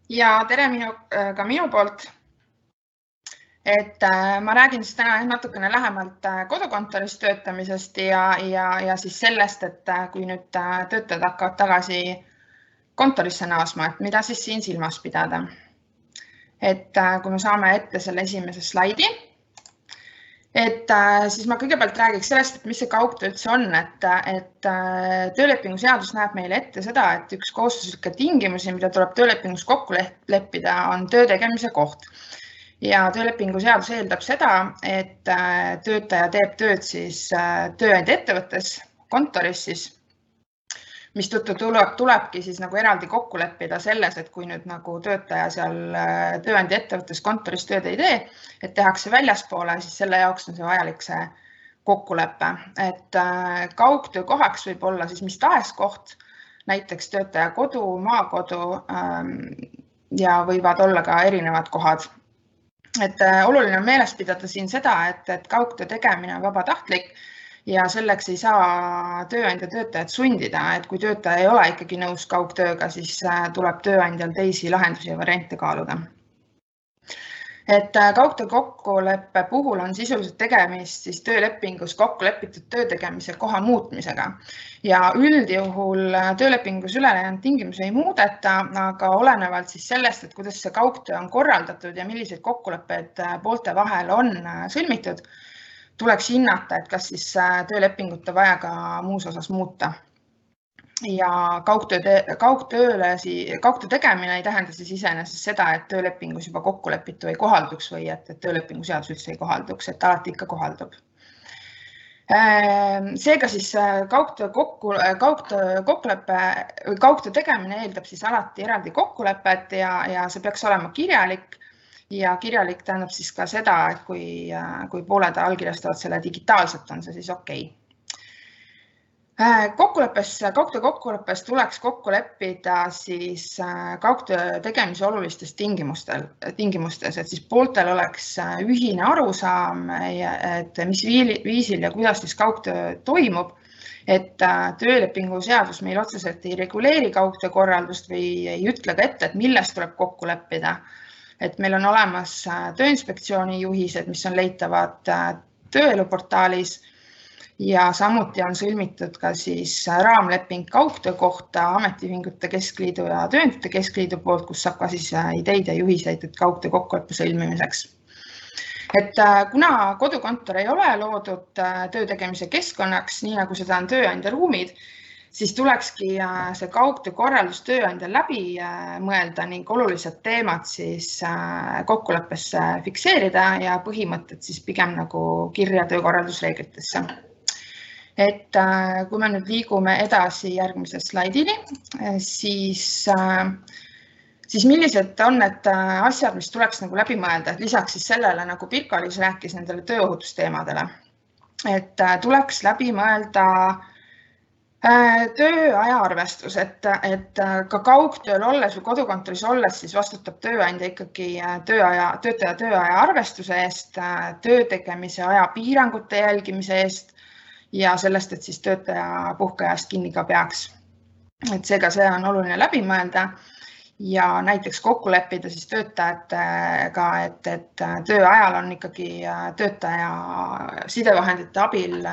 Ja tere ka minu poolt. Ma räägin siis täna natukene lähemalt kodukontoris töötamisest ja siis sellest, et kui nüüd töötajad hakkavad tagasi kontorisse naasma, et mida siis siin silmas pidada. Kui me saame ette selle esimese slaidi, siis ma kõigepealt räägiks sellest, et mis see kaugtöö üldse on, et töölepingu seadus näeb meile ette seda, et üks kohustuslikke tingimusi, mida tuleb töölepingus kokku leppida, on töö tegemise koht. Ja töölepingu seadus eeldab seda, et töötaja teeb tööd siis tööandja ettevõttes, kontoris siis, mistõttu tulebki siis nagu eraldi kokku leppida selles, et kui nüüd nagu töötaja seal tööandja ettevõttes kontoris tööd ei tee, et tehakse väljaspoole, siis selle jaoks on see vajalik see kokkulepe. Et kaugtöö kohaks võib olla siis mis tahes koht, näiteks töötaja kodu, maakodu ja võivad olla ka erinevad kohad. Et oluline on meeles pidada siin seda, et kaugtöö tegemine on vabatahtlik ja selleks ei saa tööandja töötajat sundida, et kui töötaja ei ole ikkagi nõus kaugtööga, siis tuleb tööandjal teisi lahendusi ja variante kaaluda. Et kaugtöö kokkuleppe puhul on sisuliselt tegemist siis töölepingus kokku lepitud töö tegemise koha muutmisega ja üldjuhul töölepingus ülejäänud tingimusi ei muudeta, aga olenevalt siis sellest, et kuidas see kaugtöö on korraldatud ja milliseid kokkuleppeid poolte vahel on sõlmitud, tuleks hinnata, et kas siis töölepingut on vaja ka muus osas muuta. Ja kaugtöö tegemine ei tähenda siis iseenesest seda, et töölepingus juba kokkulepitu ei kohalduks või et töölepingu seadus üldse ei kohalduks, et alati ikka kohaldub. Seega siis kaugtöö tegemine eeldab siis alati eraldi kokkulepet ja see peaks olema kirjalik ja kirjalik tähendab siis ka seda, et kui pooled allkirjastavad selle digitaalselt, on see siis okei. Kaugtöö kokkuleppes tuleks kokku leppida siis kaugtöö tegemise olulistes tingimustes, et siis pooltel oleks ühine arusaam, et mis viisil ja kuidas siis kaugtöö toimub, et töölepingu seadus meil otseselt ei reguleeri kaugtöö korraldust või ei ütle ka ette, et millest tuleb kokku leppida. Et meil on olemas Tööinspektsiooni juhised, mis on leitavad tööeluportaalis ja samuti on sõlmitud ka siis raamleping kaugtöö kohta Ametiühingute Keskliidu ja Tööandjate Keskliidu poolt, kus saab ka siis ideid ja juhiseid kaugtöö kokkuleppe sõlmimiseks. Et kuna kodukontor ei ole loodud töö tegemise keskkonnaks, nii nagu seda on tööandja ruumid, siis tulekski see kaugtöö korraldus tööandjal läbi mõelda ning olulised teemad siis kokkuleppesse fikseerida ja põhimõtted siis pigem nagu kirja töökorraldusreeglitesse. Et kui me nüüd liigume edasi järgmise slaidini, siis millised on need asjad, mis tuleks nagu läbi mõelda, et lisaks siis sellele, nagu Pirko-Liis rääkis nendele tööohutusteemadele, et tuleks läbi mõelda tööaja arvestus, et ka kaugtööl olles või kodukontoris olles siis vastutab tööandja ikkagi töötaja tööaja arvestuse eest, töö tegemise aja piirangute jälgimise eest ja sellest, et siis töötaja puhkeajast kinni ka peaks. Et seega see on oluline läbi mõelda ja näiteks kokku leppida siis töötajatega, et töö ajal on ikkagi töötaja sidevahendite abil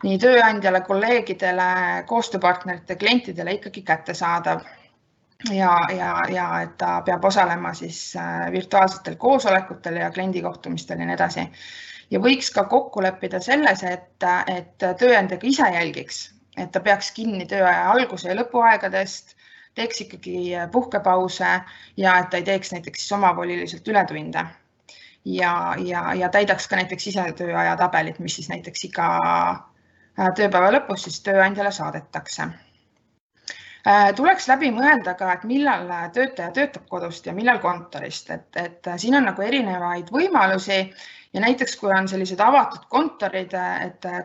nii tööandjale, kolleegidele, koostööpartnerite, klientidele ikkagi kättesaadav ja et ta peab osalema siis virtuaalsetel koosolekutel ja kliendikohtumistel ja nii edasi. Ja võiks ka kokku leppida selles, et tööandja ka ise jälgiks, et ta peaks kinni tööaja alguse ja lõpuaegadest, teeks ikkagi puhkepause ja et ta ei teeks näiteks omavoliliselt ületunde ja täidaks ka näiteks ise tööaja tabelit, mis siis näiteks iga tööpäeva lõpus siis tööandjale saadetakse. Tuleks läbi mõelda ka, et millal töötaja töötab kodust ja millal kontorist, et siin on nagu erinevaid võimalusi ja näiteks kui on sellised avatud kontorid,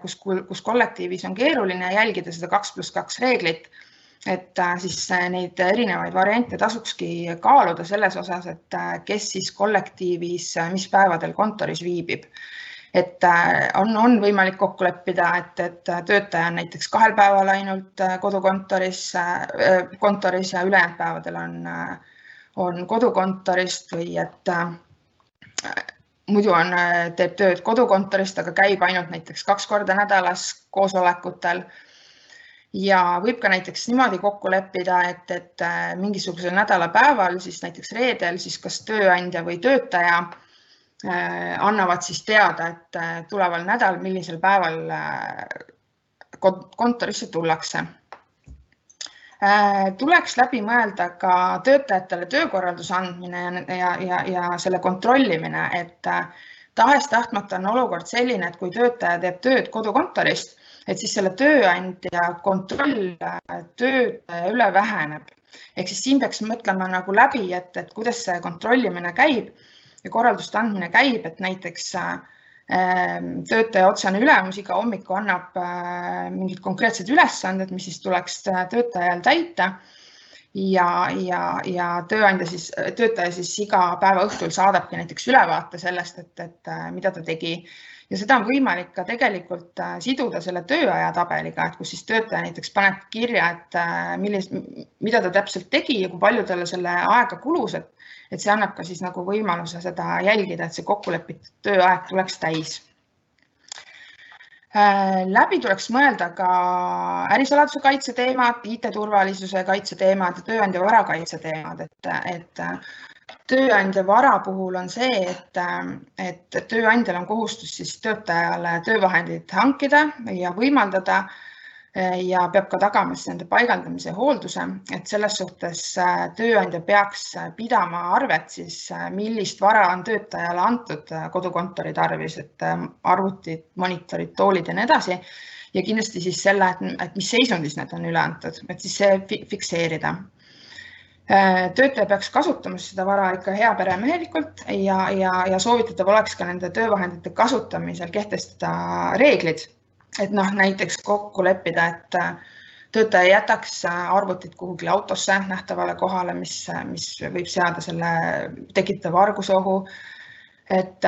kus kollektiivis on keeruline jälgida seda 2+2 reeglit, et siis neid erinevaid variante tasukski kaaluda selles osas, et kes siis kollektiivis mis päevadel kontoris viibib. Et on võimalik kokku leppida, et töötaja on näiteks 2 päeval ainult kodukontoris ja ülejäänud päevadel on kodukontorist või et muidu teeb tööd kodukontorist, aga käib ainult näiteks 2 korda nädalas koosolekutel. Ja võib ka näiteks niimoodi kokku leppida, et mingisugusel nädalapäeval, siis näiteks reedel, siis kas tööandja või töötaja annavad siis teada, et tuleval nädal, millisel päeval kontorisse tullakse. Tuleks läbi mõelda ka töötajatele töökorralduse andmine ja selle kontrollimine, et tahes-tahtmata on olukord selline, et kui töötaja teeb tööd kodukontorist, et siis selle tööandja kontroll töötaja üle väheneb. Ehk siis siin peaks mõtlema nagu läbi, et kuidas see kontrollimine käib ja korralduste andmine käib, et näiteks töötaja otsene ülemus iga hommiku annab mingid konkreetsed ülesanded, mis siis tuleks töötajal täita ja töötaja siis iga päeva õhtul saadabki näiteks ülevaate sellest, et mida ta tegi. Ja seda on võimalik ka tegelikult siduda selle tööaja tabeliga, et kus siis töötaja näiteks paneb kirja, et mida ta täpselt tegi ja kui palju talle selle aega kulus, et see annab ka siis nagu võimaluse seda jälgida, et see kokkulepitud tööaeg tuleks täis. Läbi tuleks mõelda ka ärisaladuse kaitse teemad, IT-turvalisuse kaitse teemad ja tööandja vara kaitse teemad, et tööandja vara puhul on see, et tööandjal on kohustus siis töötajale töövahendid hankida ja võimaldada ja peab ka tagama nende paigaldamise hoolduse, et selles suhtes tööandja peaks pidama arvet siis, millist vara on töötajale antud kodukontori tarvis, et arvutid, monitorid, toolid ja nii edasi. Ja kindlasti siis selle, et mis seisundis need on üle antud, et siis see fikseerida. Töötaja peaks kasutama seda vara ikka heaperemehelikult ja soovitatav oleks ka nende töövahendite kasutamisel kehtestada reeglid. Et näiteks kokku leppida, et töötaja jätaks arvutit kuhugi autosse nähtavale kohale, mis võib seada selle tekitava argusohu, et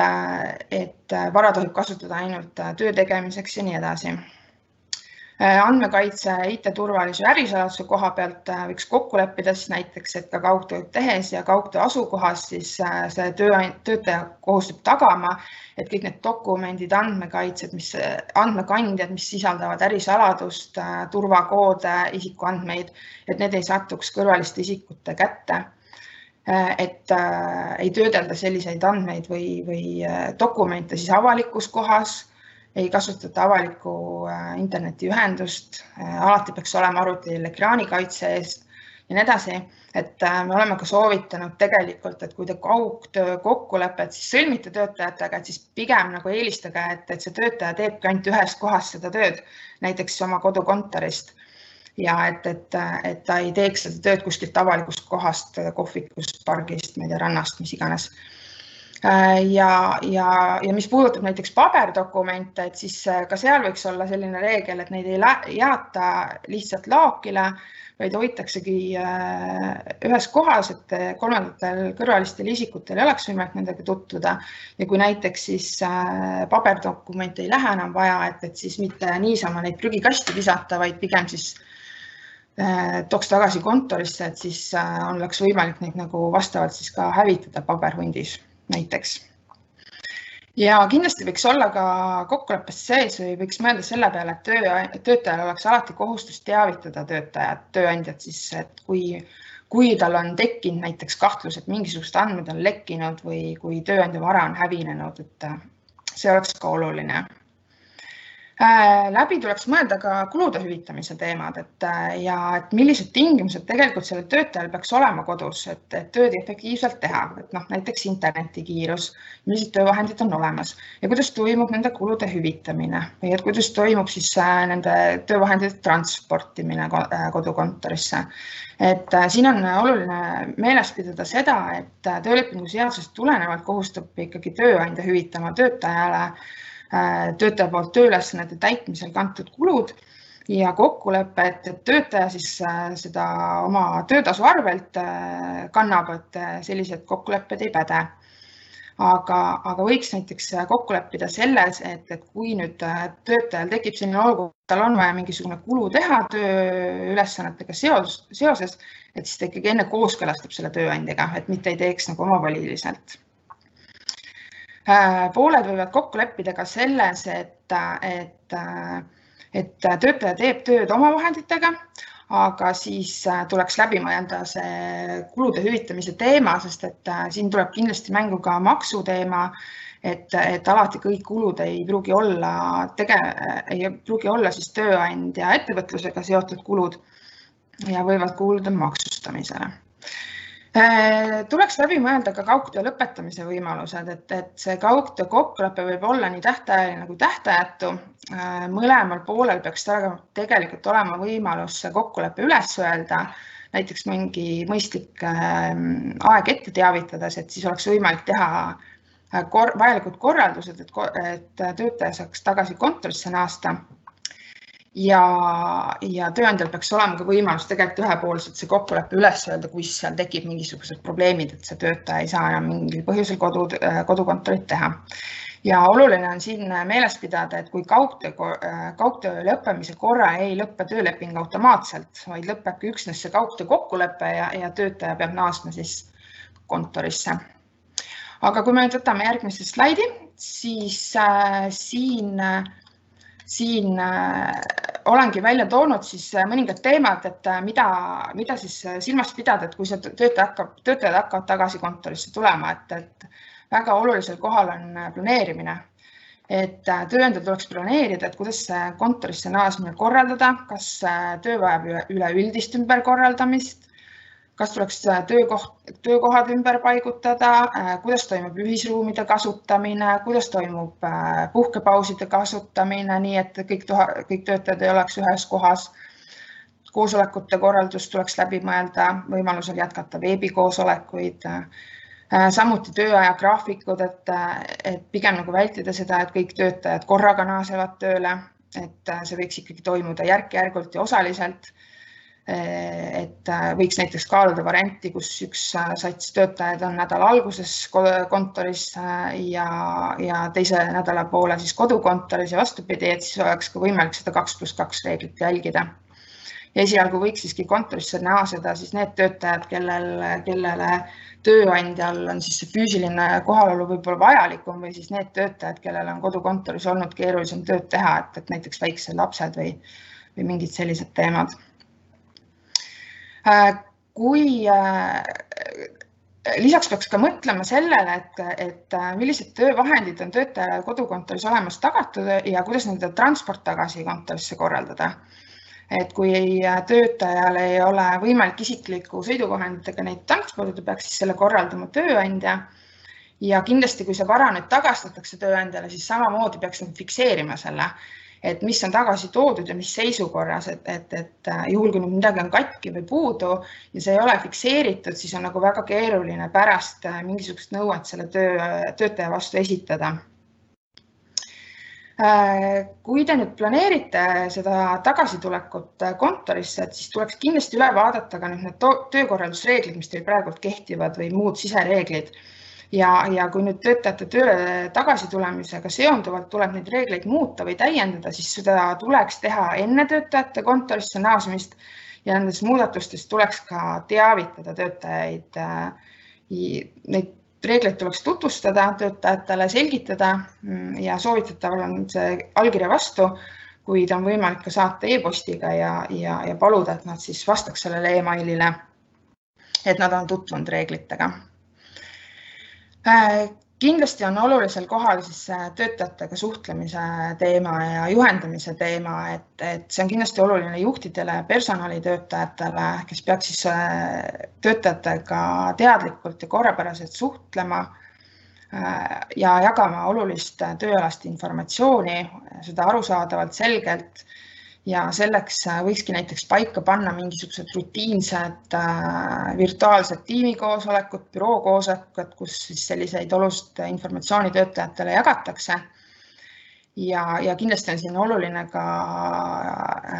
vara tohib kasutada ainult töö tegemiseks ja nii edasi. Andmekaitse, IT-turvalisuse ja ärisaladuse koha pealt võiks kokku leppida siis näiteks, et ka kaugtööd tehes ja kaugtöö asukohas siis see töötaja kohustub tagama, et kõik need dokumendid, andmekaitsed, andmekandjad, mis sisaldavad ärisaladust, turvakoode, isikuandmeid, et need ei satuks kõrvaliste isikute kätte. Et ei töödelda selliseid andmeid või dokumente siis avalikus kohas, ei kasutata avalikku internetiühendust, alati peaks olema arvutil ekraanikaitse eest ja nii edasi. Et me oleme ka soovitanud tegelikult, et kui te kaugtöö kokkulepet siis sõlmite töötajatega, et siis pigem nagu eelistage, et see töötaja teebki ainult ühest kohast seda tööd, näiteks oma kodukontorist. Ja et ta ei teeks seda tööd kuskilt avalikust kohast, kohvikust, pargist, rannast, mis iganes. Ja mis puudutab näiteks paberdokumente, et siis ka seal võiks olla selline reegel, et neid ei jaata lihtsalt laokile, vaid hoitaksegi ühes kohas, et kolmandatel kõrvalistel isikutel ei oleks võimalik nendega tutvuda. Ja kui näiteks siis paberdokumente ei lähe enam vaja, et siis mitte niisama neid prügikasti visata, vaid pigem siis tooks tagasi kontorisse, et siis oleks võimalik neid nagu vastavalt siis ka hävitada paberhundis näiteks. Ja kindlasti võiks olla ka kokkuleppest sees või võiks mõelda selle peale, et töötajal oleks alati kohustus teavitada tööandjat siis, et kui tal on tekkinud näiteks kahtlus, et mingisugused andmed on lekkinud või kui tööandja vara on hävinenud, et see oleks ka oluline. Läbi tuleks mõelda ka kulude hüvitamise teemad, et millised tingimused tegelikult sellel töötajal peaks olema kodus, et tööd efektiivselt teha, et näiteks internetikiirus, millised töövahendid on olemas ja kuidas toimub nende kulude hüvitamine või et kuidas toimub siis nende töövahendite transportimine kodukontorisse. Et siin on oluline meeles pidada seda, et töölepingu seadusest tulenevalt kohustab ikkagi tööandja hüvitama töötajale töötaja poolt tööülesannete täitmisel kantud kulud ja kokkulepe, et töötaja siis seda oma töötasu arvelt kannab, et sellised kokkulepped ei päde. aga võiks näiteks kokku leppida selles, et kui nüüd töötajal tekib selline olukord, tal on vaja mingisugune kulu teha tööülesannetega seoses, et siis ta ikkagi enne kooskõlastab selle tööandjaga, et mitte ei teeks nagu omavoliliselt. Pooled võivad kokku leppida ka selles, et töötaja teeb tööd omavahenditega, aga siis tuleks läbi mõelda see kulude hüvitamise teema, sest et siin tuleb kindlasti mängu ka maksuteema, et alati kõik kulud ei pruugi olla siis tööandja ettevõtlusega seotud kulud ja võivad kuuluda maksustamisele. Tuleks läbi mõelda ka kaugtöö lõpetamise võimalused, et see kaugtöö kokkulepe võib olla nii tähtajaline kui tähtajatu. Mõlemal poolel peaks tegelikult olema võimalus kokkulepe üles öelda, näiteks mingi mõistlik aeg ette teavitades, et siis oleks võimalik teha vajalikud korraldused, et töötaja saaks tagasi kontorisse naasta. Ja tööandjal peaks olema ka võimalus tegelikult ühepoolselt see kokkulepe üles öelda, kui seal tekib mingisugused probleemid, et see töötaja ei saa enam mingil põhjusel kodukontorit teha. Ja oluline on siin meeles pidada, et kui kaugtöö lõppemise korra ei lõppe tööleping automaatselt, vaid lõpebki üksnes see kaugtöö kokkulepe ja töötaja peab naasma siis kontorisse. Aga kui me nüüd võtame järgmise slaidi, siis siin olengi välja toonud siis mõningad teemad, et mida siis silmas pidada, et kui see töötajad hakkavad tagasi kontorisse tulema, et väga olulisel kohal on planeerimine. Et tööandjal tuleks planeerida, et kuidas kontorisse naasmine korraldada, kas töö vajab üleüldist ümberkorraldamist, kas tuleks töökohad ümber paigutada, kuidas toimub ühisruumide kasutamine, kuidas toimub puhkepauside kasutamine, nii et kõik töötajad ei oleks ühes kohas. Koosolekute korraldus tuleks läbi mõelda, võimalusel jätkata veebikoosolekuid, samuti tööaja graafikud, et pigem nagu vältida seda, et kõik töötajad korraga naasevad tööle, et see võiks ikkagi toimuda järk-järgult ja osaliselt. Et võiks näiteks kaaluda varianti, kus üks sats töötajad on nädala alguses kontoris ja teise nädala poole siis kodukontoris ja vastupidi, et siis oleks ka võimalik seda 2+2 reeglit jälgida. Ja esialgu võiks siiski kontorisse naaseda siis need töötajad, kellele tööandjal on siis see füüsiline kohalolu võib-olla vajalikum või siis need töötajad, kellel on kodukontoris olnud keerulisem tööd teha, et näiteks väiksed lapsed või mingid sellised teemad. Lisaks peaks ka mõtlema sellele, et millised töövahendid on töötajale kodukontoris olemas tagatud ja kuidas nende transport tagasi kontorisse korraldada. Et kui töötajal ei ole võimalik isikliku sõiduvahenditega neid transpordida, peaks siis selle korraldama tööandja. Ja kindlasti, kui see vara nüüd tagastatakse tööandjale, siis samamoodi peaks fikseerima selle, et mis on tagasi toodud ja mis seisukorras, et juhul, kui midagi on katki või puudu ja see ei ole fikseeritud, siis on nagu väga keeruline pärast mingisugust nõuet selle töötaja vastu esitada. Kui te nüüd planeerite seda tagasitulekut kontorisse, siis tuleks kindlasti üle vaadata ka need töökorraldusreeglid, mis teil praegu kehtivad või muud sisereeglid. Ja kui nüüd töötajate tööle tagasitulemisega seonduvalt tuleb neid reegleid muuta või täiendada, siis seda tuleks teha enne töötajate kontorisse naasmist ja nendest muudatustest tuleks ka teavitada töötajaid. Neid reegleid tuleks tutvustada töötajatele, selgitada ja soovitataval on see allkirja vastu, kuid on võimalik ka saata e-postiga ja paluda, et nad siis vastaks sellele e-mailile, et nad on tutvunud reeglitega. Kindlasti on olulisel kohal siis töötajatega suhtlemise teema ja juhendamise teema, et see on kindlasti oluline juhtidele ja personalitöötajatele, kes peaks siis töötajatega teadlikult ja korrapäraselt suhtlema ja jagama olulist tööalast informatsiooni, seda arusaadavalt selgelt. Ja selleks võikski näiteks paika panna mingisugused rutiinsed virtuaalsed tiimikoosolekud, bürookoosolekud, kus siis selliseid olulist informatsiooni töötajatele jagatakse. Ja kindlasti on siin oluline ka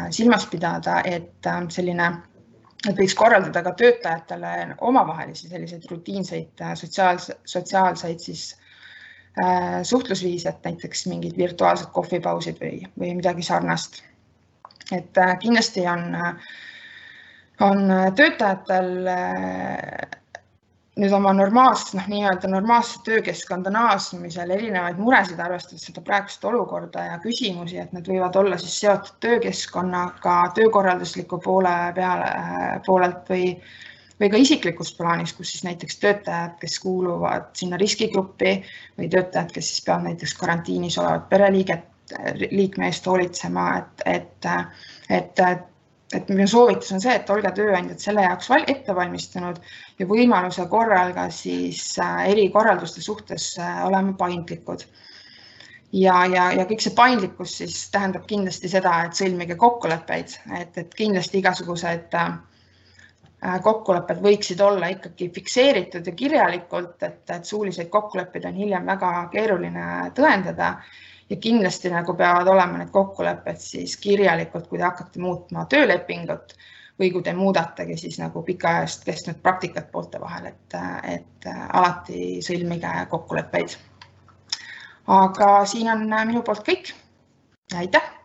silmas pidada, et võiks korraldada ka töötajatele omavahelisi selliseid rutiinseid sotsiaalseid siis suhtlusviis, et näiteks mingid virtuaalsed kohvipausid või midagi sarnast. Et kindlasti on töötajatel nüüd oma normaalse töökeskkonda naasmisel erinevaid muresid, arvestades seda praegust olukorda ja küsimusi, et need võivad olla siis seotud töökeskkonnaga töökorraldusliku poolelt või ka isiklikus plaanis, kus siis näiteks töötajad, kes kuuluvad sinna riskigruppi või töötajad, kes siis peavad näiteks karantiinis olevat pereliikme eest hoolitsema, et minu soovitus on see, et olge tööandjad selle jaoks ette valmistunud ja võimaluse korral ka siis erikorralduste suhtes olema paindlikud. Ja kõik see paindlikkus siis tähendab kindlasti seda, et sõlmige kokkuleppeid, et kindlasti igasugused kokkulepped võiksid olla ikkagi fikseeritud ja kirjalikult, et suuliseid kokkuleppeid on hiljem väga keeruline tõendada. Ja kindlasti peavad olema need kokkulepped siis kirjalikult, kui te hakkate muutma töölepingut või kui te muudategi siis pikaajast kestnud praktikat poolte vahel, et alati sõlmige kokkuleppeid. Aga siin on minu poolt kõik. Aitäh!